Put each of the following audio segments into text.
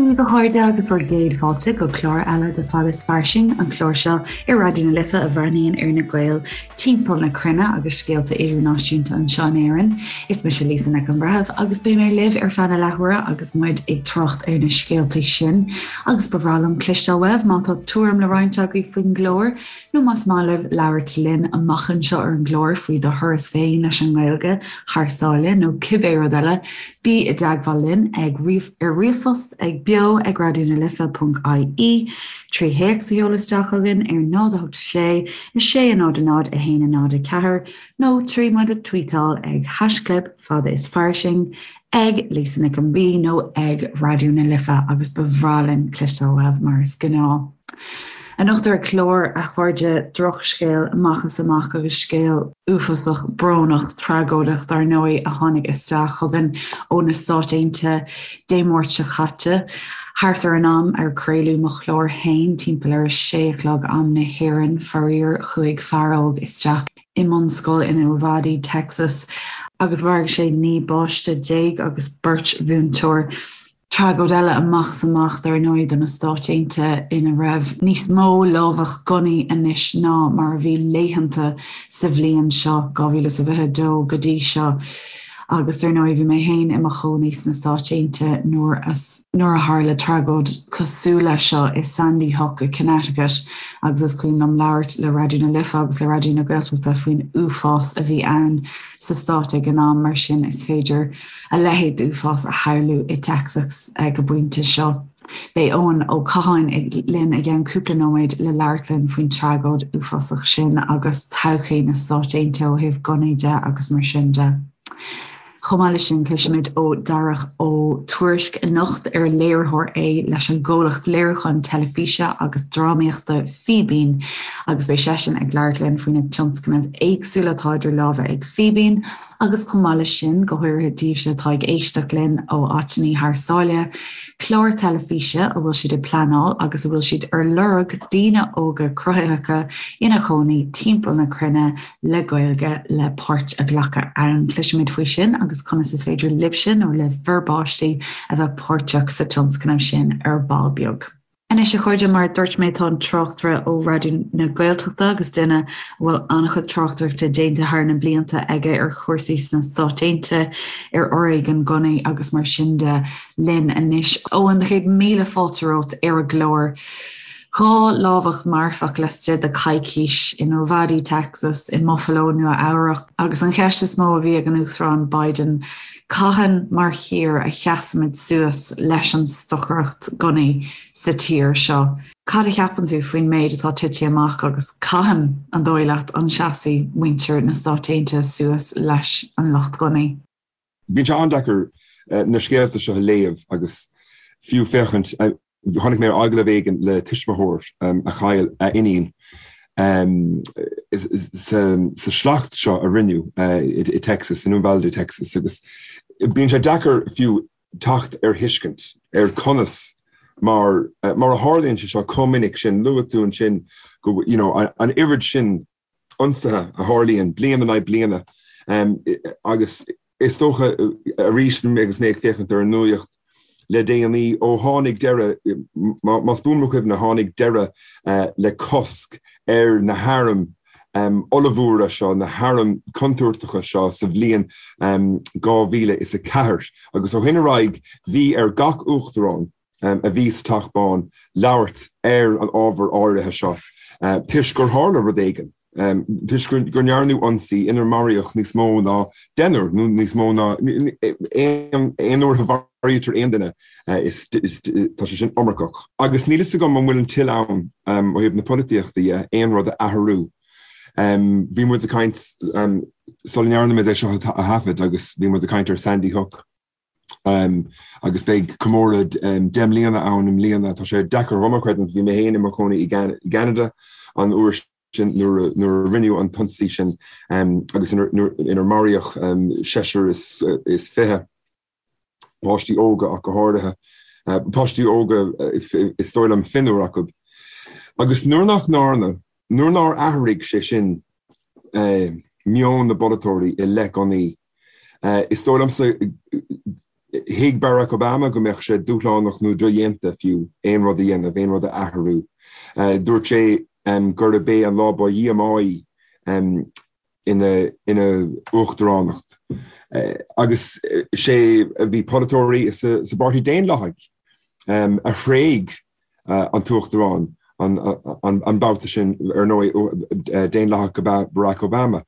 Dia daoibh a chairde agus bhur gcéad fáilte go clár eile de Fada is Fairsing, an clár seo ar Raidió na Life a bhreathnaíonn ar na Gaeil timpeall na cruinne agus scéalta idirnáisiúnta anseo in Éirinn. Is mise Lisa Nic an Bhreithimh agus beidh mé libh ar feadh na leathuaire agus muid ag trácht ar na scéalta sin. Agus ba bhreá liom cloisteáil uaibh má tá tuairim le roinnt agaibh faoin gclár nó más maith libh labhairt linn amach anseo ar an gclár faoi do thuras féin leis an nGaeilge thar sáile nó cibé rud eile, bí i dteagmháil linn ag ar ríomhphost ag beo ag raidionalife.ie, 3 théacs a sheoladh isteach chugainn ar 0 8 6 6 0 0 1 0 4 nó 3 muid a tweetáil ag haischlib fada is fairsing ag Lisa Nic an B nó ag Raidió na Life agus ba bhreá linn cloisteáil uaibh mar is gnáth. Anocht ar an gclár, a chairde, drochscéal amach is amach agus scéal uafásach, brónach, tragóideach dar ndóigh a tháinig isteach chugainn ó na Stáit Aontaithe Dé Máirt seo caite. Thart ar an am ar craoladh mo chlár féin, timpeall ar a sé a chlog am na hÉireann, faraor, chuaigh fear óg isteach i mbunscoil in Uvalde, Texas, agus mharaigh sé 19 bpáiste agus beirt mhúinteoir. Tragóid eile amach is amach, dar ndóigh, do na Stáit Aontaithe ina raibh níos mó lámhach gunnaí anois ná mar a bhí laethanta sa bhliain seo, 2022, go dtí seo. Agus dar ndóigh, bhí mé féin i mo chónaí sna Stáit Aontaithe nuair a nuair a tharla tragóid cosúil leis seo i Sandy Hook i Connecticut agus is cuimhin liom labhairt le Raidió na Life agus le Raidió na Gaeltachta faoin uafás a bhí ann sa stát ag an am, mar sin is féidir a leithéid d'uafás a shamhlú i Texas ag an bpointe seo. Beidh Eoin Ó Catháin linn i gceann cúpla nóiméad le labhairt linn faoin tragóid uafásach sin agus todhchaí na Stáit Aontaithe ó thaobh gunnaí de agus mar sin de. Chomh maith leis sin, cloisfimid ó Dharach Ó Tuairisg anocht, ar léiritheoir é leis an gcomhlacht léiriúcháin teilifíse agus drámaíochta Fíbín, agus beidh seisean ag labhairt linn faoi na tionscnaimh éagsúla atá idir lámha ag Fíbín agus chomh maith leis sin, go háirithe daoibhse atá ag éisteacht linn ó áiteanna thar sáile, clár teilifíse a bhfuil siad ag pleanáil agus a bhfuil siad ar lorg daoine óga cruthaitheacha ina gcónaí timpeall na cruinne le Gaeilge le páirt a ghlacadh ann. Cloisfimid faoi sin agus conas is féidir libhse nó le bhur bpáistí a bheith páirteach sa tionscnamh sin ar ball beag. Anois a chairde, mar a dúirt mé tá an tráchtaire ó Raidió na Gaeltachta agus duine a bhfuil an-chuid tráchtaireachta déanta thar na blianta aige ar chúrsaí sna Stáit Aontaithe, ar fhoréigean gunnaí agus mar sin de, linn anois. Eoin, céad míle fáilte romhat ar an gclár. 2 lámhach marfach laistigh de coicís in Uvalde, Texas, i mBuffalo, Nua Eabhrac, agus an cheist is mó a bhí ag an Uachtarán Biden, cathain mar thír a sheasaimid suas leis an stocaireacht gunnaí sa tír seo? Cad a cheapann tú faoin méid atá tite amach agus cathain, an dóigh leat, an seasfaidh muintir na Stát Aontaithe suas leis an lucht gunnaí? Bíonn sé an-deacair na scéalta seo a léamh agus fiú féachaint Chonaic mé agallamh éigin le tuismitheoir a chaill a iníon sa sliocht seo a rinneadh i Texas, in Uvalde, Texas, agus bíonn sé deacair fiú teacht ar thuiscint ar conas mar mar a tharlaíonn sé seo chomh minic sin. Luaigh tú ansin go you know an oiread sin ionsaithe a tharlaíonn bliain in aghaidh bliana agus is dócha arís agus mé ag féachaint ar an nuaíocht le déanaí ó tháinig deireadh, más buan mo chuimhne, tháinig deireadh le cosc ar na hairm ollmhóra seo, na hairm chontúirteacha seo sa bhliain 2004 agus ó shin ar aghaidh bhí ar gach uachtarán, a bhí sa Teach Bán labhairt ar an ábhar áirithe seo toisc gur tharla rud éigin, toisc go ndearnadh ionsaí inar maraíodh níos mó ná deichniúr nó níos mó ná aon uair a mharaítear aon duine, tá sé sin iomarcach. Agus níl fhios agam an bhfuil an toil ann ó thaobh na polaitíochta dhe aon rud a athrú. Bhí muid ag caint sula ndearna muid é seo a thaifead agus bhí muid ag caint ar Sandy Hook. Agus beidh comóradh 10 mbliana ann i mbliana. Tá sé deacair dhom a chreidiúint, bhí mé féin i mo chónaí i gCeanada an uair sin nuair a rinneadh an t-ionsaí sin agus inar maraíodh seisear is fiche, páistí óga ach go háirithe, páistí óga is dóigh liom fionnuar acu. Agus nuair nach ndearna, nuair nár athraigh sé sin meon na bpolaiteoirí i leith gunnaí, Is dóigh liomsa Thuig Barack Obama go mbeadh sé dúshlánach nó dodhéanta fiú aon rud a dhéanamh, aon rud a athrú. Dúirt sé gurb é an lá ba dhíomáí ina ina uachtaránacht. Agus sé bhí polaiteoirí sa bPáirtí Daonlathaigh a thréig an t-uachtarán an babhta sin, ar ndóigh, Daonlathach ab ea Barack Obama.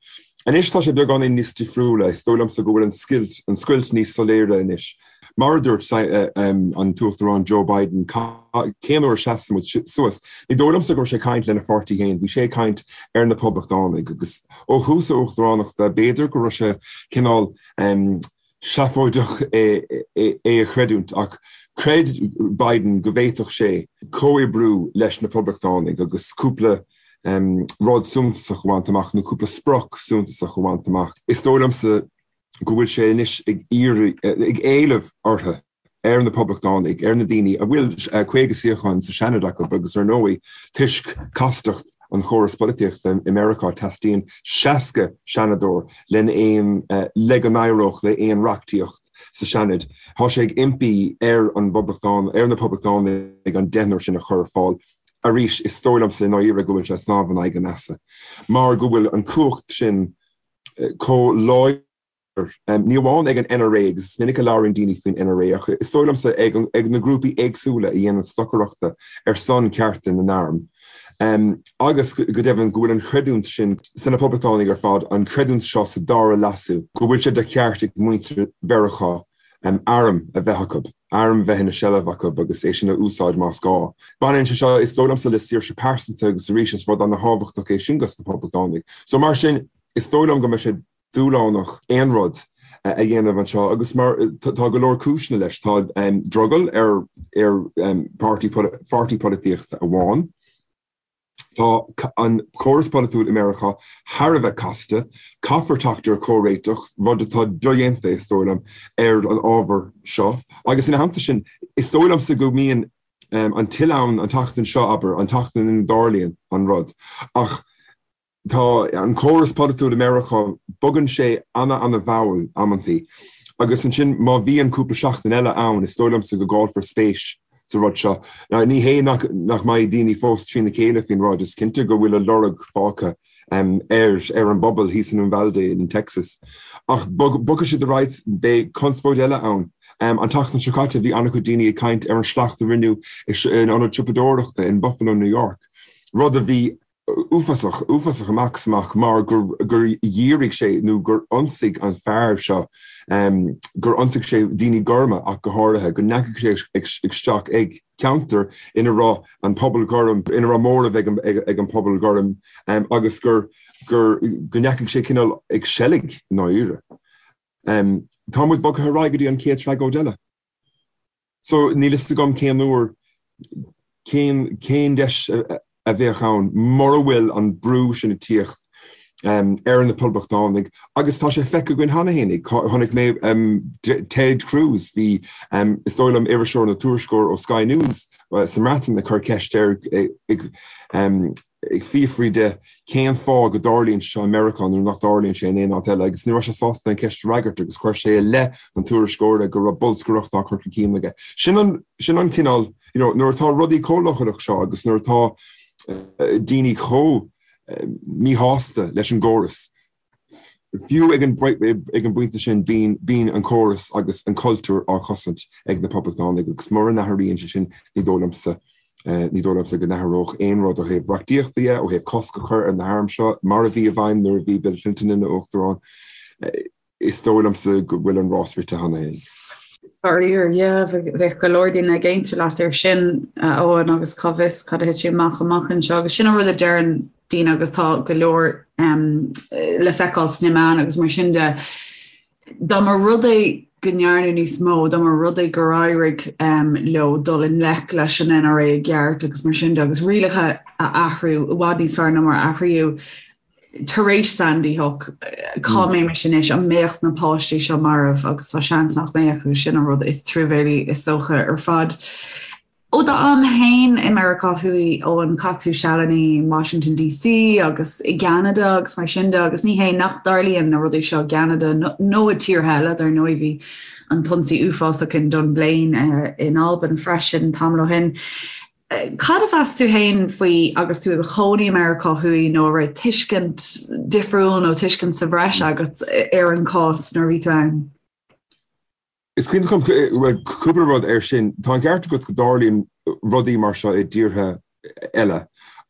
Anois tá sé beagáinín níos difriúla, is dóigh liomsa go bhfuil an scoilt, an scoilt níos soiléire anois. Mar a dúirt an tUachtarán Joe Biden, cén uair a seasann muid suas? Ní dóigh liomsa go raibh sé ag caint lena pháirtí féin, bhí sé ag caint ar na Poblachtánaigh agus ó thús a uachtaránachta b'fhéidir go raibh sé cineál seafóideach é a chreidiúint ach chreid Biden go bhféadfadh sé comhoibriú leis na Poblachtánaigh agus cúpla rud suntasach a bhaint amach nó cúpla sprioc suntasach a bhaint amach. Is dóigh liomsa go bhfuil sé anois ag iarraidh, ag éileamh orthu, ar na Poblachtánaigh, ar na daoine a bhfuil 50 suíochán sa Seanad acu agus ar ndóigh toisc castacht an chóras polaitíochta i Meiriceá teastaíonn 60 seanadóir len aon, le go n-éireodh le aon reachtaíocht sa Seanad. Tá sé ag impí ar an bPoblachtán, ar na Poblachtánaigh an deichniúr sin a chur ar fáil. Arís, is dóigh liomsa i ndáiríre go bhfuil sé ag snámh in aghaidh an easa mar go bhfuil an cumhacht sin chomh láidir, ní amháin ag an NRA, agus is minic a labhraíonn daoine faoin NRA, ach is dóigh liomsa ag na grúpaí éagsúla a dhéanann stocaireachta ar son cearta na n-arm, agus go deimhin go bhfuil an chreidiúint sin sna Poblachtánaigh ar fad, an chreidiúint seo sa dara leasú, go bhfuil sé de cheart ag muintir Mheiriceá arm a bheith acu, arm a bheith ina seilbh acu agus é sin a úsáid más gá. Baineann sé seo, is dóigh liomsa, le saoirse pearsanta agus arís is rud ana-thábhachtach é sin dos na Poblachtánaigh. So mar sin, is dóigh liom go mbeidh sé dúshlánach aon rud a dhéanamh anseo agus mar tá go leor cúiseanna leis. Tá drogall ar ar pháirtí pháirtí polaitíochta amháin. Tá an córas polaitiúil i Meiriceá thar a bheith casta. Caithfear teacht ar chomhréiteach, rud atá dodhéanta, is dóigh liom, ar an ábhar seo. Agus ina theannta sin, is dóigh liomsa go mbíonn an tuile ann an tseachtain seo, abair, an tseachtain ina dtarlaíonn an rud. Ach tá an córas polaitiúil i Meiriceá, bogann sé ana-ana-mhall amantaí. Agus ansin má bhíonn cúpla seachtain eile ann, is dóigh liomsa go gcaillfear spéis sa rud seo. Ní hé nach mbeidh daoine fós trína chéile faoin rud, is cinnte go bhfuil a lorg fágtha ar ar an bpobal thíos in Uvalde in Texas. Ach bogfaidh siad ar aghaidh, beidh conspóid eile ann. An tseachtain seo caite bhí an-chuid daoine ag caint ar an slacht a rinneadh in ionad siopadóireachta in Buffalo, New York, rud a bhí uafásach, uafásach amach is amach mar gur gur dhírigh sé nó gur ionsaigh an fear seo, gur ionsaigh sé daoine gorma ach go háirithe, go ndeachaigh sé isteach ag ceantar ina raibh an pobal gorm, ina raibh móramh ag an ag an pobal gorm agus gur gur go ndeachaigh sé cineál ag seilg i ndáiríre. Tá muid bogtha ar aghaidh go dtí an chéad tragóid eile. So, níl fhios agam cén uair, cén, cén deis a bheadh ann mura bhfuil an brú sin ag tíocht ar na Poblachtánaigh agus tá sé feicthe againn cheana féin. Chonaic mé Ted Cruz, bhí, is dóigh liom, iriseoir nó tuairisceoir ó Sky News sa mBreatain ag cur ceist air ag, ag fiafraí de cén fáth go dtarlaíonn sé seo i Meiriceá nuair nach dtarlaíonn sé in aon áit eile agus ní raibh sé sásta an cheist a fhreagairt agus chuir sé i leith an tuairisceora go raibh bolscaireacht á cur chun cinn aige. Sin an, sin an cineál, you know, nuair atá rudaí chomh leochaileach seo agus nuair atá daoine chomh míshásta leis an gcóras, Fiú ag an bpointe sin, bíonn an córas agus an cultúr á chosaint ag na Poblachtánaigh agus mura n-athraíonn sé sin, ní dóigh liomsa, ní dóigh liomsa go n-athródh aon rud ó thaobh reachtaíochta dhe, ó thaobh cosc a chur ar na hairm seo, mar a bhí i bhfeidhm nuair a bhí Bill Clinton ina Uachtarán. Is dóigh liomsa go bhfuil an rás rite cheana féin. Faraor, yeah, bheadh go leor daoine ag aontú leat air sin, a Eoin, agus cá bhfios cad a thitfidh amach amach anseo. Agus sin an rud a deireann daoine agus tá go leor le feiceáil sna meáin agus mar sin de. Dá mba rud é go ndearnadh níos mó, dá mba rud é gur éirigh leo dul i ngleic leis an NRA i gceart agus mar sin de agus rialacha a athrú i bhfad níos fearr ná mar a athraíodh tar éis Sandy Hook, cá mbeimis anois, an mbeadh na páistí seo marbh agus tá seans nach mbeadh agus sin an rud is truamhéalaí is dócha ar fad. Ó d'am féin i Meiriceá Thuaidh, Eoin, chaith tú sealanna in Washington DC agus i gCeanada agus mar sin de agus ní hé nach dtarlaíonn na rudaí seo i gCeanada nó i tíortha eile, dar ndóigh bhí an t-ionsaí uafásach in Dunblane in Albain freisin tamall ó shin. Cad a mheas tú féin faoi agus tú i do chónaí i Meiriceá Thuaidh nó an raibh tuiscint difriúil nó tuiscint sa bhreis agat ar an chás nuair a bhí tú ann? Is cuimhin liom, bhuel, cúpla rud air sin. Tá an ceart agat go dtarlaíonn rudaí mar seo i dtíortha eile,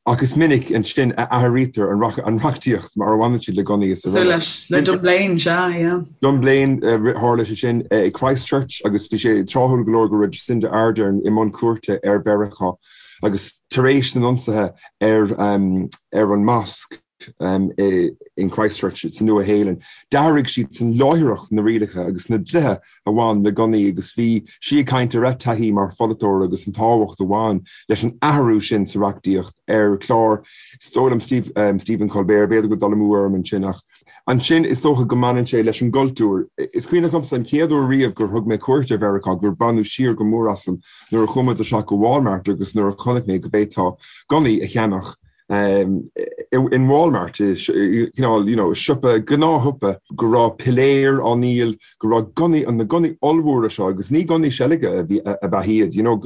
ach is minic ansin a athraítear an reachtaíocht mar a bhaineann siad le gunnaí is araile. Cosúil le Dunblane, sea, yeah. Dunblane, tharla sé sin i Christchurch agus bhí sé tráthúil go leor go raibh Jacinda Ardern i mbun cuairte ar Mheiriceá agus tar éis na n-ionsaithe ar an mosc, in Christchurch sa Nua-Shéalainn. D'athraigh siadsan láithreach na rialacha agus na dlíthe a bhain le gunnaí agus bhí sí ag caint ar a taithí mar pholaiteoir agus an tábhacht a bhain leis an athrú sin sa reachtaíocht ar chlár, is dóigh liom, Stephen Colbert, b'fhéidir go bhfuil dul amú orm ansin ach ansin is dócha go mbaineann sé leis an gcultúr. Is cuimhneach liomsa an chéad uair riamh gur thug mé cuairt ar Mheiriceá gur baineadh siar go mór asam nuair a chuaigh muid isteach go Walmart agus nuair a chonaic mé go bhféadfá gunnaí a cheannach in Walmart, cineál, you know, siopa, gnáthshiopa, go raibh piléir á ndíol, go raibh gunnaí, na gunnaí ollmhóra seo, agus ní gunnaí seilge a bhí, ab ea iad, you know,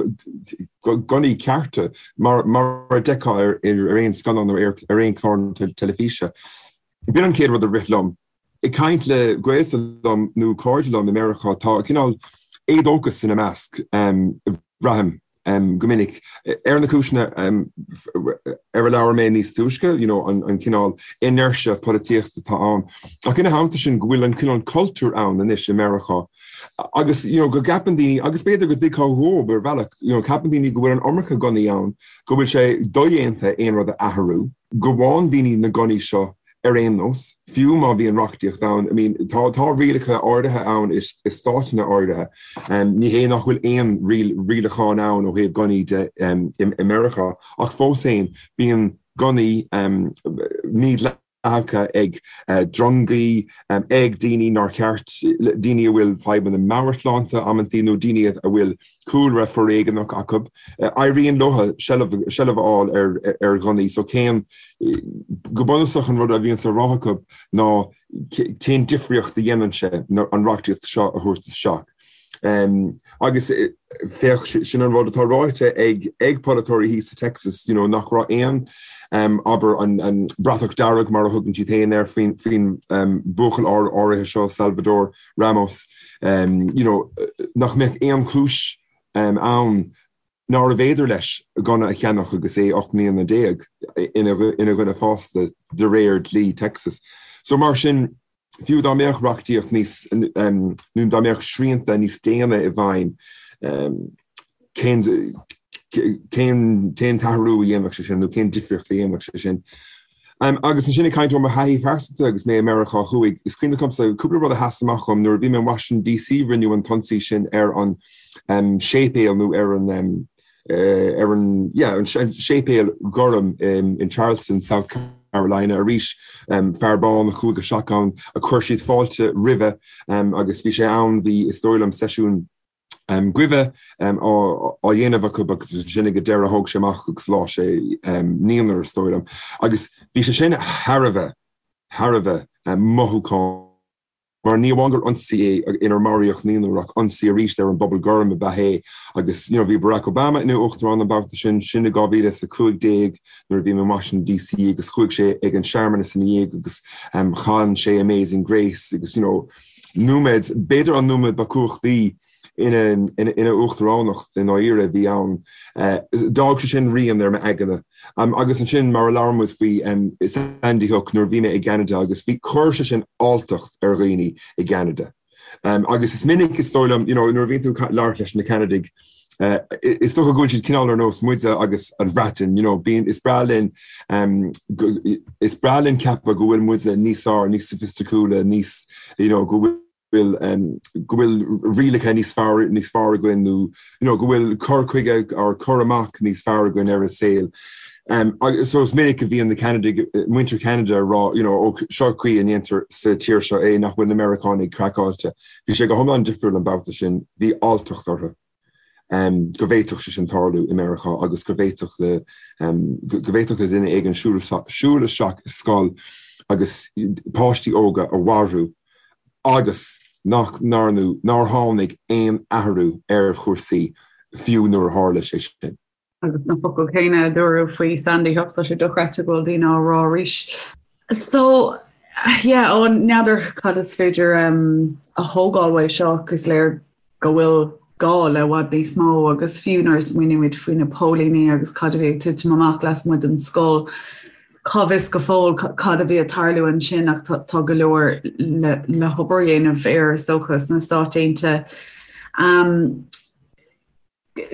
gunnaí cearta, mar, mar a d'fheicfeá ar, ar aon scannán nó ar, ar aon chlár teilifíse. B'in an chéad rud a rith liom. Ag caint le gaolta liom nó cairde liom i Meiriceá, tá cineál éadóchas ina measc, braithim. go minic, ar na cúiseanna ar a labhair mé níos túisce, you know, an cineál inertia polaitíochta atá ann. Ach ina theannta sin, go bhfuil an cineál cultúr ann anois i Meiriceá agus, you know, go gceapann daoine, agus b'fhéidir go dtuigfeá dhóibh ar bhealach, you know, ceapann daoine go bhfuil an iomarca gunnaí ann, go bhfuil sé dodhéanta aon rud a athrú, go bhfaigheann daoine na gunnaí seo Ar aon nós, fiú má bhíonn reachtaíocht ann, I mean, tá, tá rialacha áirithe ann i, i stáiteanna áirithe. Ní hé nach bhfuil aon rialachán ann ó thaobh gunnaí de i, i Meiriceá, ach fós féin, bíonn gunnaí mídhleathacha ag drongaí, ag daoine nár cheart, daoine a bhfuil fadhbanna meabhairshláinte amantaí nó daoine a bhfuil cúlra foréigeanach acu. Éiríonn leo seilbh, seilbh a fháil ar, ar ghunnaí. So cén, go bunúsach an rud a bhíonns á rá acu ná cén difríocht a dhéanann sé an reachtaíocht seo a thabhairt isteach. Agus féach, sin an rud atá ráite ag, ag polaiteoirí thíos sa Texas, you know, nach raibh aon, abair, an, an bratach dearg mar a thugann siad féin air faoin, faoin buachaill áirithe seo, Salvador Ramos, you know, nach mbeadh aon chúis ann nárbh fhéidir leis gunna a cheannach agus é 18 mbliana ina dhuine fásta de réir dlí Texas. So mar sin, fiú dá mbeadh reachtaíocht níos, nó dá mbeadh srianta níos déine i bhfeidhm, cén cén cén t-athrú a dhéanfadh sé sin nó cén difríocht a dhéanfadh sé sin? Agus ansin ag caint ó mo thaithí phearsanta agus mé i Meiriceá Thuaidh, is cuimhin liomsa cúpla rud a sheas amach dhom nuair a bhí mé in Washington DC rinneadh an t-ionsaí sin ar an séipéal nó ar an ar an yeah an séipéal gorm in Charleston, South Carolina arís fear bán a chuaigh isteach ann a chuir siad fáilte roimhe agus bhí sé ann bhí is dóigh liom seisiún guibhe á dhéanamh acu agus ansin ag an deireadh thóg sé amach agus sháigh sé naonúr is dóigh liom. Agus bhí sé sin thar a bheith, thar a bheith mothúchánach mar ní amháin gur ionsaí é inar maraíodh naonúr ach ionsaí arís ar an bpobal gorm ab ea é agus you know bhí Barack Obama ina uachtarán an babhta sin, sin i 2015 nuair a bhí mé in Washington DC agus chuaigh sé ag an searmanas ina dhiaidh agus chan sé Amazing Grace agus you know nóiméad, b'fhéidir an nóiméad ba chumhachtaí ina ina uachtaránacht i ndáiríre a bhí ann. D'fhág sé sin rian ar m'aigne. Agus ansin, mar a labhair muid faoi Sandy Hook nuair a bhí mé i gCeanada agus bhí, chuir sé sin alltacht ar dhaoine i gCeanada. Agus is minic, is dóigh liom, you know, nuair a bhíonn tú ag labhairt leis na Ceanadaigh, is dócha go bhfuil siad cineál ar nós muide agus an Bhreatain, you know, bíonn, is breá linn, is breá linn ceapadh go bhfuil muide níos fearr, níos soifisticiúla, níos, you know, go bhfuil, go bhfuil rialacha níos fearr, níos fearr againn nó, you know, go bhfuil cur chuige or cur amach níos fearr againn ar an saol. Agus so is minic a bhíonn na Ceanadaigh, muintir Cheanada ag rá, you know, ó seo caoi a ndéantar sa tír seo é, nach bhfuil na Meiriceánaigh craiceáilte. Bhí sé go hiomlán difriúil an babhta sin, bhí alltacht orthu. go bhféadfadh sé sin tarlú i Meiriceá agus go bhféadfadh le go bhféadfadh le duine éigin siúl siúl isteach i scoil agus páistí óga a mharú agus nach ndearnadh, nár tháinig aon athrú ar chúrsaí fiú nuair a tharla sé sin. Agus na focail céanna a dúradh faoi Sandy Hook, tá sé dochreidte go bhfuil daoine á rá arís. So, yeah, ó n'fheadar cad is féidir um, a thógáil uaidh seo, ach is léir go bhfuil gá le i bhfad níos mó agus fiú nuair a smaoinímid faoi na póilíní agus cad a bhí ag titim amach lasmuigh den scoil, cá bhfios go fóill cad a bhí ag tarlú ansin ach tá go leor le, le hobair a dhéanamh air is dócha sna Stáit Aontaithe. Um,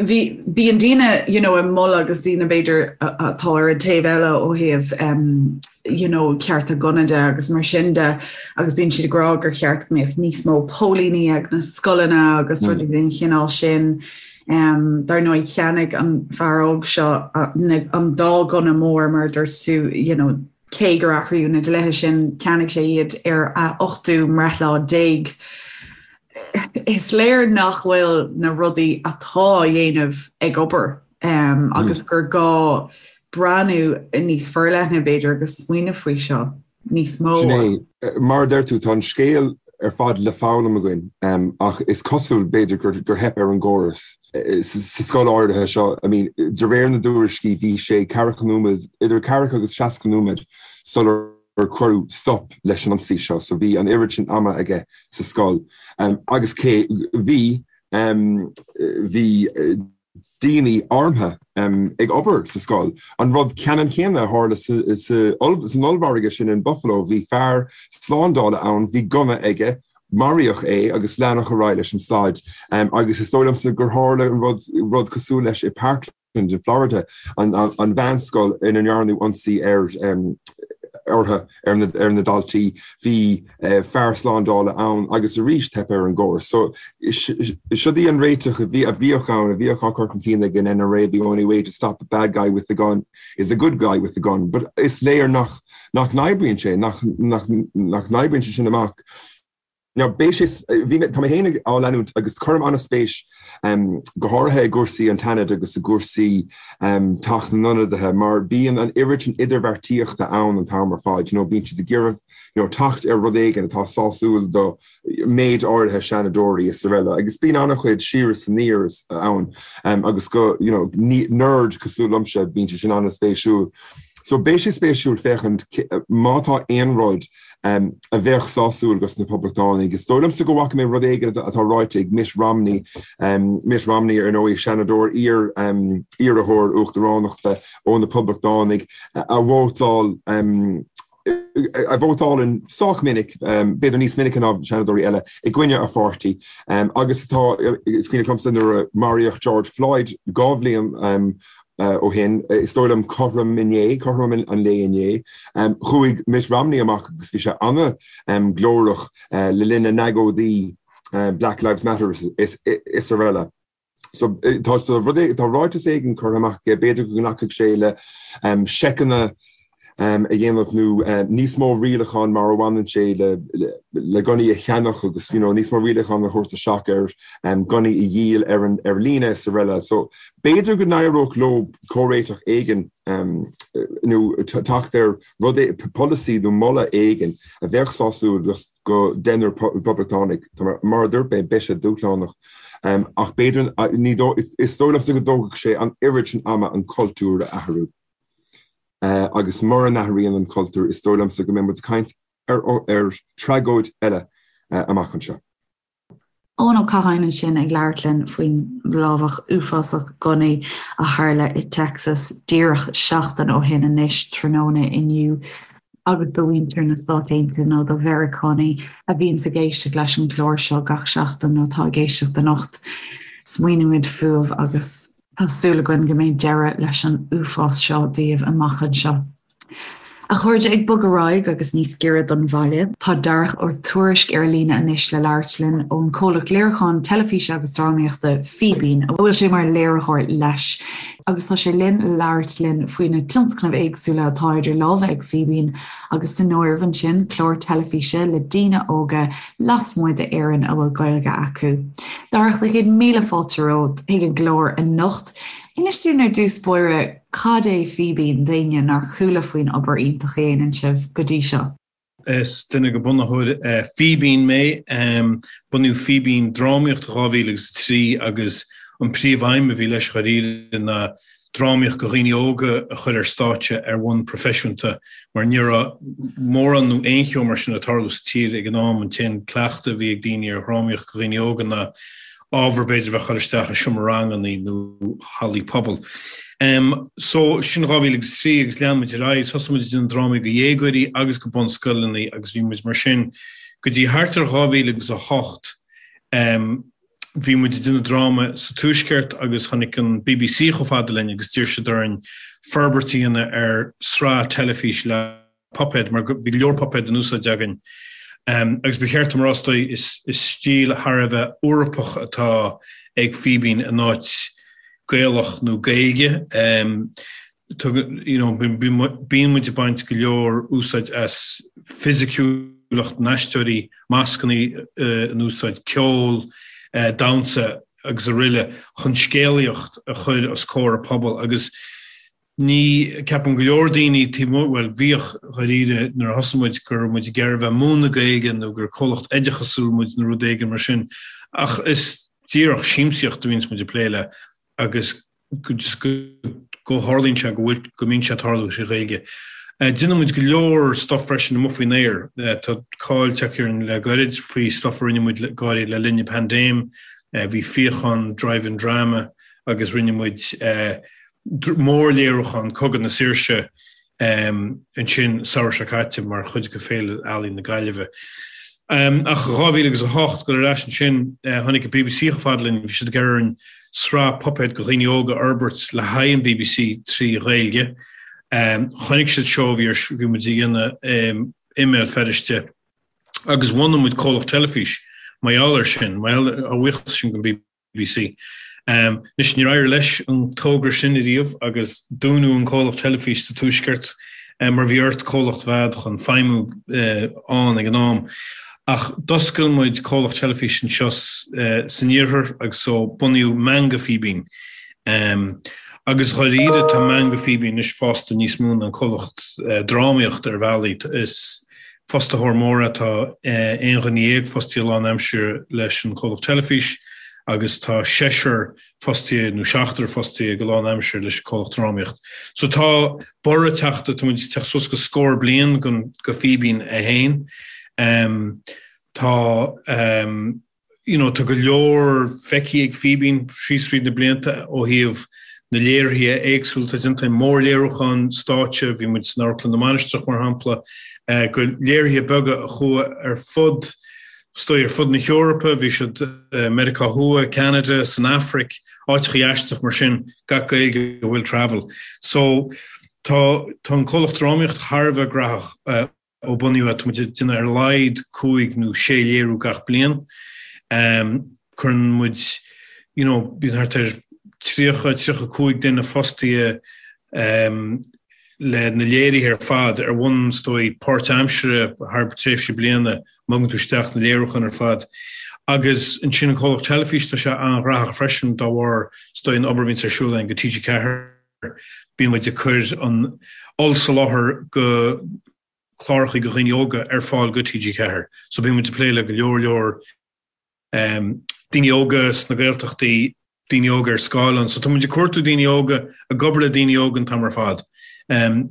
Bhí, bíonn daoine, you know, ag moladh agus daoine b'fhéidir atá ar an taobh eile ó thaobh um, you know, cearta gunna de agus mar sin de agus bíonn siad ag rá gur cheart go mbeadh níos mó póilíní ag na scoileanna agus mm. rudaí den chineál sin. Um, dar ndóigh cheannaigh an fear óg seo an dá gunna mór mar dúirt tú, you know, cé gur athraíodh na dlíthe sin, cheannaigh sé iad ar a ochtú mbreithlá déag. Is léir nach bhfuil na rudaí atá á dhéanamh ag obair agus gur gá breathnú níos forleithne, b'fhéidir, agus smaoineamh faoi seo níos mó. Sin é. Mar a deir tú, tá an scéal ar fad le foghlaim againn ach is cosúil, b'fhéidir, gur theip ar an gcóras sa scoil áirithe seo. I mean, de réir na dtuairiscí, bhí sé ceathracha nóiméad, idir ceathracha agus 60 nóiméad sular cuireadh stop leis an ionsaí seo, so bhí an oiread sin ama aige sa scoil. Agus cé bhí, bhí daoine armtha ag obair sa scoil. An rud ceannann céanna a tharla san ollmhargadh sin in Buffalo, bhí fear slándála ann, bhí gunna aige, maraíodh é agus leanadh ar aghaidh leis an staid. Agus is dóigh liomsa gur tharla an rud, rud cosúil leis i Parkland in Florida, an mheánscoil ina ndearnadh ionsaí ar orthu, ar na daltaí. Bhí fear slándála ann agus arís teip ar an gcóras. So siod í an réiteach a bhí a bhíodh ann, a bhíodh á cur chun cinn ag an NRA, the only way to stop a bad guy with a gun is a good guy with a gun. But is léir nach nach n-oibríonn sé, nach nach nach n-oibríonn sé sin amach. Now, beidh sé, bhí mé, tá mé féin á leanúint agus cuirim an-spéis go háirithe i gcúrsaí an tSeanaid agus i gcúrsaí Teach na nIonadaithe mar bíonn an oiread sin idirbheartaíochta ann an t-am ar fad, you know, bíonn siad ag iarraidh, you know, teacht ar rud éigin atá sásúil do méid áirithe seanadóirí is araile agus bíonn an-chuid siar is aniar ann agus go, you know, nerd cosúil liomsa, bíonn sé sin an-spéisiúil. So beidh sé spéisiúil féachaint má tá aon rud a bheadh sásúil dos na Poblachtánaigh. Is dóigh liomsa go bhfaca mé rud éigin atá ráite ag Mitt Romney, Mitt Romney ar ndóigh, seanadóir, iar iarrthóir uachtaránachta ó na Poblachtánaigh, a vótáil a vótálann sách minic, b'fhéidir níos minice ná seanadóirí eile, i gcoinne a pháirtí agus atá, is cuimhin liomsa nuair a maraíodh George Floyd 2 bhliain ó shin, is dóigh liom cothrom inné, cothrom an lae inné, chuaigh Mitt Romney amach agus bhí sé an-ghlórach le linn na n-agóidí Black Lives Matter is araile. So tá tá ráiteas éigin curtha amach aige, b'fhéidir go nglacfadh sé le seiceanna a dhéanamh nó níos mó rialachán mar a bhaineann sé le le gunnaí a cheannach agus you know níos mó rialachán a thabhairt isteach ar gunnaí a dhíol ar an ar líne is araile. So b'fhéidir go n-éireodh leo comhréiteach éigin nó teacht ar rud polasaí nó moladh éigin a bheadh sásúil do deichniúr Poblachtánach. Mar a dúirt mé, beidh sé dúshlánach ach b'fhéidir ní is dóigh liomsa go dtógfadh sé an oiread sin ama an cultúr a athrú. Agus mura n-athraíonn an cultúr, is dóigh liomsa go mbeidh muid ag caint ar ar tragóid eile amach anseo. Eoin Ó Catháin ansin ag labhairt linn faoin lámhach uafásach gunnaí a tharla i Texas díreach seachtain ó shin anois, tráthnóna inniu. Agus do mhuintir na Stát Aontaithe nó do Mheiriceánaigh a bhíonns ag éisteacht leis an gclár seo gach seachtain nó atá ag éisteacht anocht, smaoinímid fúibh agus Tá súil againn go mbeidh deireadh leis an uafás seo daoibh amach anseo. A chairde, ag bogadh ar aghaidh agus níos giorra don bhaile, tá Darach Ó Tuairisg ar líne anois le labhairt linn ón chomhlacht léiriúcháin teilifíse agus drámaíochta Fíbín, a bhfuil sé mar léiritheoir leis, agus tá sé linn le labhairt linn faoi na tionscnaimh éagsúla atá idir lámha ag Fíbín agus san áireamh ansin clár teilifíse le daoine óga lasmuigh d'Éirinn a bhfuil Gaeilge acu. Darach, sé 1000 fáilte romhat chuig an gclár anocht. Inis dúinn ar dtús báire cad é Fíbín d'éinne nár chuala faoin obair iontach a dhéanann sibh go dtí seo. Is duine de bhunaitheoirí Fíbín mé. Bunaíodh Fíbín Drámaíocht i 2003 agus an príomh-aidhm a bhí leis dháiríre ná drámaíocht do dhaoine óga a chur ar stáitse ar bhonn proifisiúnta mar ní raibh mórán nó aon cheo mar sin ag tarlú sa tír ag an am. An t-aon cleachtadh a bhí ag daoine ar dhrámaíocht do dhaoine óga ná ábhar b'fhéidir a bheith ag cur isteach i seomra ranganna nó hallaí pobail. So, sin 2003 agus lean muid ar aghaidh, thosaigh muid ag déanamh drámaí do dhéagóirí agus do bunscoileanna agus bhí muid mar sin go dtí thart ar 2008. Bhí muid ag déanamh dráma sa Tuaisceart agus tháinig an bbc chomh fada linn agus d'iarr siad orainn forbairt a dhéanamh ar sraith teilifíse le puipéad, mar bhí go leor puipéad in úsáid againn. Agus ba cheart dom a rá, is dóigh, is stíl thar a bheith Eorpach atá ag Fíbín in áit Gaelach nó Gaeilge. You know, bíonn muid ag baint go leor úsáid as fisiciúlacht na n-aisteoirí, mascanna in úsáid, ceol, damhsa agus araile chun scéalaíocht a chur os comhair an phobail agus Ní, ceapann go leor daoine taobh amuigh, bhuel, bhíodh, dháiríre, nuair a thosaigh muid, go raibh muid ag iarraidh a bheith ag múineadh Gaeilge nó gur comhlacht oideachasúil muid nó rud éigin mar sin, ach is díreach siamsaíocht a bhíonns muid ag plé le agus go just go go tharlaíonn sé go bhfuil, go mbíonn sé ag tarlú trí Ghaeilge. Déanann muid go leor stuff freisin amuigh faoin aer. Tá cáil tagtha orainn le gairid faoi stuff a rinne muid go háirithe le linn na paindéime. Bhí Fíochán Drive-In Drama agus rinne muid mórléiriúchán Cogadh na Saoirse ansin samhradh seo caite mar chuid de Féile Ealaíon na Gaillimhe. Ach 2008, dul ar ais ansin, tháinig an bbc chomh fada linn, bhí siad ag iarraidh orainn sraith puipéad do dhaoine óga a fhorbairt le haghaidh an bbc trí Ghaeilge. Chonaic siad seó a bhí ar, bhí muid a dhéanamh i mBéal Feirste agus bhunaigh muid comhlacht teilifís mar gheall air sin, mar gheall ar, a bhuíochas sin don bbc. BBC. Anois, níor éirigh leis an togra sin ariamh agus dúnadh an comhlacht teilifís sa Tuaisceart mar bhí ort comhlacht a bheith a'd chun feidhmiú ann ag an am. Ach d'oscail muid comhlacht teilifís anseo san Iarthar agus so bunaíodh Meangadh Fíbín. Agus dháiríre tá Meangadh Fíbín anois fásta níos mó ná an comhlacht drámaíochta ar bhealaí. Is Fostaitheoir mór é, tá 11 dhuine fostaithe lánaimseartha leis an chomhlacht teilifís agus tá seisear fostaithe nó seachtar fostaithe go lánaimseartha leis an chomhlacht drámaíocht. So tá borradh teachta, tá muid ag teacht suas go scór bliain go Fíbín é féin. Tá. you know, tá go leor feicthe ag Fíbín síos fríd na blianta ó thaobh na léirithe éagsúla atá déanta, mórléiriúcháin stáitse, bhí muid san Amharclann na Mainistreach mar shampla, go léirithe beaga a chuaigh ar fud, is dóigh, ar fud na hEorpa, bhí siad i Meiriceá Thuaidh, Ceanada, san Afraic, áiteachaí aisteach mar sin, gach Gaeilge will travel. So tá tá an comhlacht drámaíocht thar a bheith graitheach. Ó bunaíodh é, tá muid ag déanamh ar a laghad cúig nó sé léiriú gach bliain. Cuireann muid, you know, bíonn thart ar 30, 35 duine fostaithe le na léirithe ar fad ar bhonn, is dóigh, páirtaimseartha thar tréimhse bliana, má thugann tú isteach na léiriúcháin ar fad. Agus ansin an comhlacht teilifís, tá sé an-ghraitheach freisin dá bharr, is dóigh, an obair a bhíonns ar siúl againn go TG4. Bíonn muid ag cur an ollsoláthar go cláracha do dhaoine óga ar fáil go TG4. So bíonn muid ag plé le go leor leor daoine óga sna Gaeltachtaí, daoine óga ar scáileán. So tá muid ag cuartú daoine óga, ag obair le daoine óga an t-am ar fad.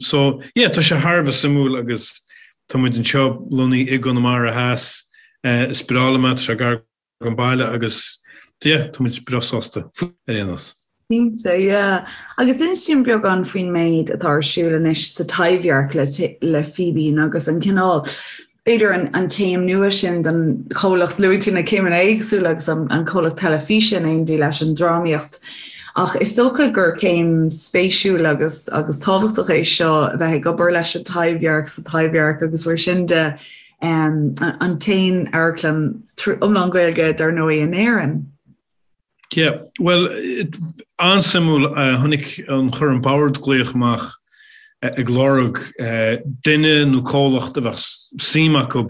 So yeah, tá sé thar a bheith suimiúil agus tá muid anseo lonnaithe i gConamara Theas. Is breá liom é, tá sé gar don baile agus yeah, tá muid breá sásta ar aon nós. Cinnte, yeah. Agus inis dúinn beagán faoin méid atá ar siúl anois sa Taibhdhearc le, le Fíbín agus an cineál, b'fhéidir an, an céim nua sin don chomhlacht, luaigh tú na céimeanna éagsúla agus an, an comhlacht teilifíse in éindí leis an drámaíocht. Ach is dócha gur céim spéisiúil agus agus tábhachtach é seo a bheith ag obair leis an Taibhdhearc sa Taibhdhearc agus mar sin de an t-aon amharclann iomlán Gaeilge dar ndóigh in Éirinn. Yeah, bhuel, an-suimiúil, tháinig an chuir an bord glaoch amach ag lorg duine nó comhlacht a bheadh suim acu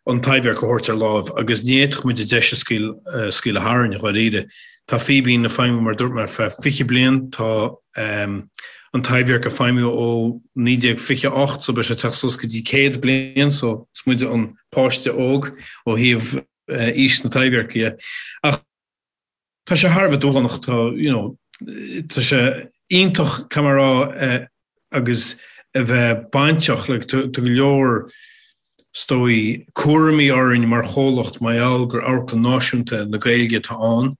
an Taibhdhearc a thabhairt ar láimh agus ní fhéadfadh muid an deis a scaoileadh tharainn, dháiríre. Tá Fíbín ag feidhmiú, mar a dúirt mé, ar feadh 20 bliain, tá an Taibhdhearc ag feidhmiú ó 1928 so beidh sé ag teacht suas go dtí 100 bliain so is muide an páiste óg ó thaobh aois na Taibhdheirce dhe. Ach tá sé thar a bheith dúshlánach, tá, you know, tá sé iontach, caithfidh mé a rá, agus a bheith bainteach, like, tá go leor, is dóigh, cúraimí orainn mar chomhlacht mar gheall gur amharclann náisiúnta na Gaeilge atá ann.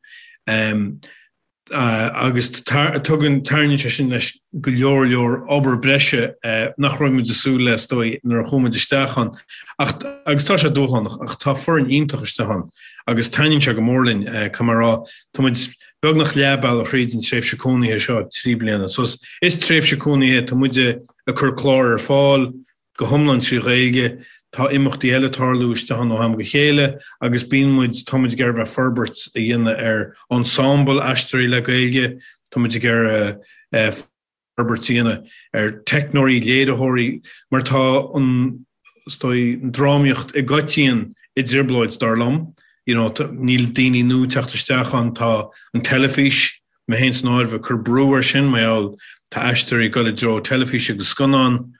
Agus tugann, tarraingíonn sé sin leis go leor leor obair breise nach raibh muid ag súil le, is dóigh, nuair a chuaigh muid isteach ann. Ach, agus tá sé dúshlánach, ach tá foireann iontach istigh ann agus taitníonn sé go mór linn, caithfidh mé a rá. Tá muid beagnach leath bealaigh thríd an tréimhse cónaithe seo, 3 bliana. So is tréimhse cónaithe, tá muid ag cur clár ar fáil, go hiomlán trí Ghaeilge. Tá imeachtaí eile ag tarlú istigh ann ó am go chéile agus bíonn muid, tá muid ag iarraidh bheith forbairt a dhéanamh ar ensemble aisteoirí le Gaeilge, tá muid ag iarraidh forbairt a dhéanamh ar teicneoirí, léiritheoirí, mar tá an, is dóigh, an drámaíocht i gcoitinne i dtrioblóid, dar liom. You know, níl daoine nua ag teacht isteach ann, tá an teilifís, mé féin san áireamh, ag cur brú air sin mar gheall tá aisteoirí ag dul i dtreo teilifíse agus scannán,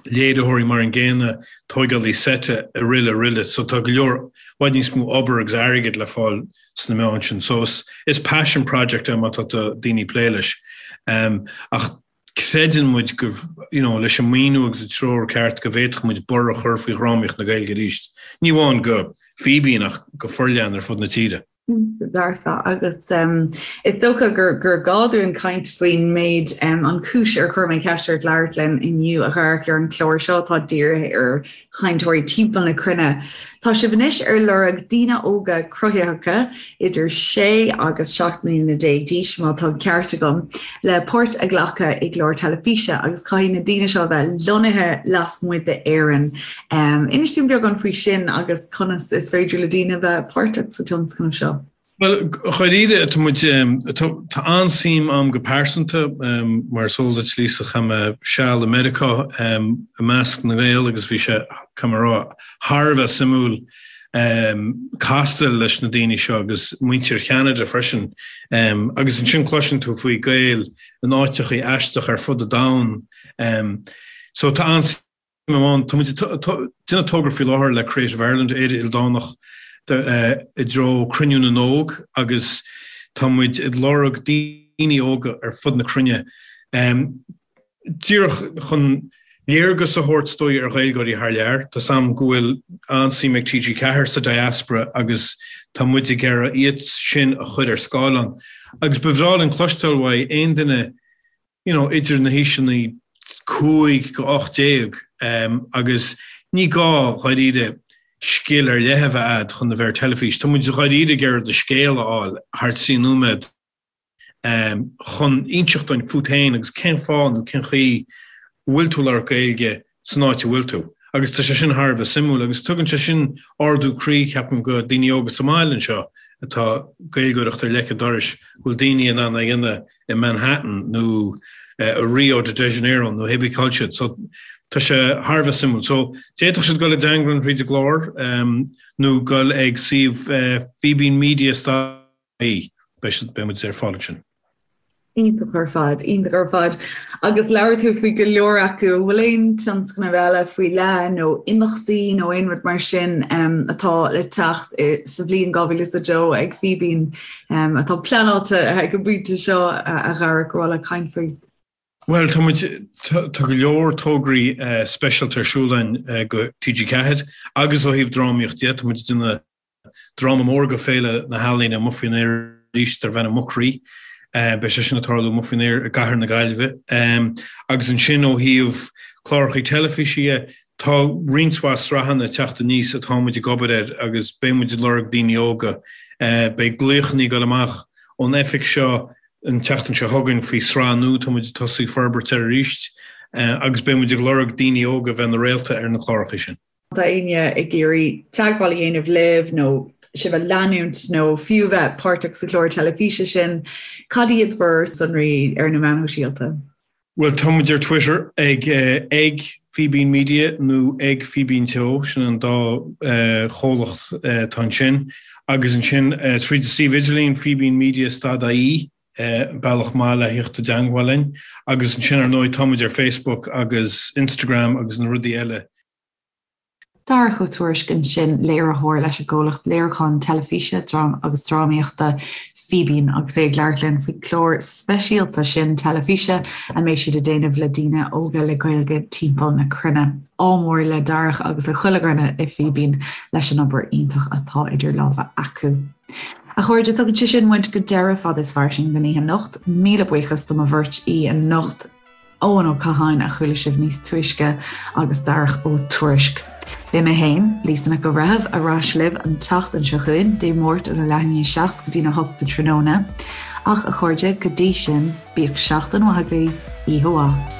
léiritheoirí mar an gcéanna, tóigeálaí seite, araile araile. So tá go leor, i bhfad níos mó obair agus airgead le fáil sna meáin sin. So is, is passion project é má tá daoine ag plé leis. Ach creideann muid go, you know, leis an maoiniú agus an treoir ceart go bhféadfadh muid borradh a chur faoi dhrámaíocht na Gaeilge arís. Ní amháin go Fíbín ach go forleathan ar fud na tíre. Dearfa, agus is dócha gur gá dúinn caint faoin méid, an chúis ar chuir mé ceist ort labhairt linn inniu, a Dharach, ar an chlár seo atá dírithe ar chainteoirí timpeall na cruinne. Tá sibh anois ar lorg daoine óga cruthaitheacha idir 6 agus 17 mbliana d'aois, má tá an ceart agam, le páirt a ghlacadh i gclár teilifíse agus caithfidh na daoine seo a bheith lonnaithe lasmuigh d'Éirinn. Inis dúinn beagán faoi sin agus conas is féidir le daoine bheith páirteach sa tionscnamh seo. Bhuel, dháiríre, tá muid, tá an-suim a'm go pearsanta, mar is eol duit, Lisa, chaith mé seal i Meiriceá i measc na nGael agus bhí sé, caithfidh mé a rá, thar a bheith suimiúil castáil leis na daoine seo agus muintir Cheanada freisin. Agus ansin cloiseann tú faoi Gaeil in áiteachaí aisteacha ar fud an domhain. So tá an-suim ann. Tá muid ag déanamh togra faoi láthair le Creative Ireland, Éire Ildánach, i dtreo Cruinniú na nÓg agus tá muid ag lorg daoine óga ar fud na cruinne díreach chun léargas a thabhairt is dóigh ar Ghaeilgeoirí thar lear. Tá 's a'm go bhfuil an-suim ag TG4 sa diaspora agus tá muid ag iarraidh iad sin a chur ar scáileán. Agus ba bhreá linn cloisteáil uaidh aon duine you know, idir na haoiseanna 5 go 18 agus ní gá dháiríre scil ar leith a bheith a'd chun a bheith ar teilifís. Tá muid dháiríre ag iarraidh do scéal a fháil thar 3 nóiméad chun inseacht dúinn fút féin agus cén fáth nó cén chaoi a bhfuil tú ag labhairt Gaeilge san áit a bhfuil tú. Agus tá sé sin thar a bheith suimiúil agus tugann sé sin ardú croí, ceapaim, go daoine óga sa mbaile anseo atá Gaeilgeoireacht ar leic an dorais, go bhfuil daoine in ann é a dhéanamh i Manhattan nó i Rio de Janeiro nó hébí cá bhfuil siad. So tá sé thar a bheith suimiúil. So d'fhéadfadh siad dul i dteangmháil linn thríd an gclár nó dul ag suíomh Fíbín Media ie. Beidh siad, beidh muid ar fáil ansin. Iontach ar fad, iontach ar fad. Agus labhair tú faoi go leor acu, an bhfuil aon tionscnamh eile faoi leith nó imeachtaí nó aon rud mar sin atá le teacht sa bhliain 2002 ag Fíbín atá pleanáilte ag an bpointe seo a Dharach ar mhaith leat caint faoi? Bhuel, tá muid, tá go leor tograí speisialta ar siúl againn go TG4 agus ó thaobh drámaíocht de, tá muid ag déanamh Dráma mór go Féile na hEalaíne amuigh faoin aer arís darb ainm Mucrí. Beidh sé sin ag tarlú amuigh faoin aer i gcathair na Gaillimhe. Agus ansin ó thaobh cláracha teilifíse dhe, tá roinnt mhaith sraitheanna ag teacht aníos atá muid ag obair air agus beidh muid ag lorg daoine óga. Beidh glaochanna ag dul amach ón oifig seo. An tseachtain seo chugainn faoi sraith nua tá muid ag tosú ag forbairt air arís agus beidh muid ag lorg daoine óga a bheith ina réalta ar na cláracha sin. Tá éinne ag iarraidh teagmháil a dhéanamh libh nó sibh a leanúint nó fiú bheith páirteach sa chlár teilifíse sin, cad iad bhur sonraí ar na meáin shóisialta? Bhuel, tá muid ar Twitter ag ag Fíbín Media nó ag Fíbín Teo, sin an dá chomhlacht atá ansin. Agus ansin tríd an suíomh idirlín fíbínmedia stad ie, bealach maith le theacht i dteangmháil linn. Agus ansin ar ndóigh tá muid ar Facebook agus Instagram agus na rudaí eile. Darach Ó Tuairisg ansin, léiritheoir leis an gcomhlacht léiriúcháin teilifíse agus drámaíochta Fíbín agus é ag labhairt linn faoin chlár speisialta sin teilifíse a mbeidh siad ag déanamh le daoine óga le Gaeilge timpeall na cruinne. Ádh mór le Darach agus le chuile dhuine i Fíbín leis an obair iontach atá idir lámha acu. A chairde, tugann sé sin muid go deireadh Fada is Fairsing don oíche anocht. Míle buíochas do mo bheirt aoi anocht. Eoin Ó Catháin a chuala sibh níos túisce agus Darach Ó Tuairisg. Beidh mé féin, Lisa Nic an Bhreithimh, ar ais libh an tseachtain seo chugainn, Dé Máirt óna leath i ndiaidh 7 go dtína 8 sa tráthnóna. Ach, a chairde, go dtí sin, bíodh seachtain mhaith agaibh, oíche mhaith.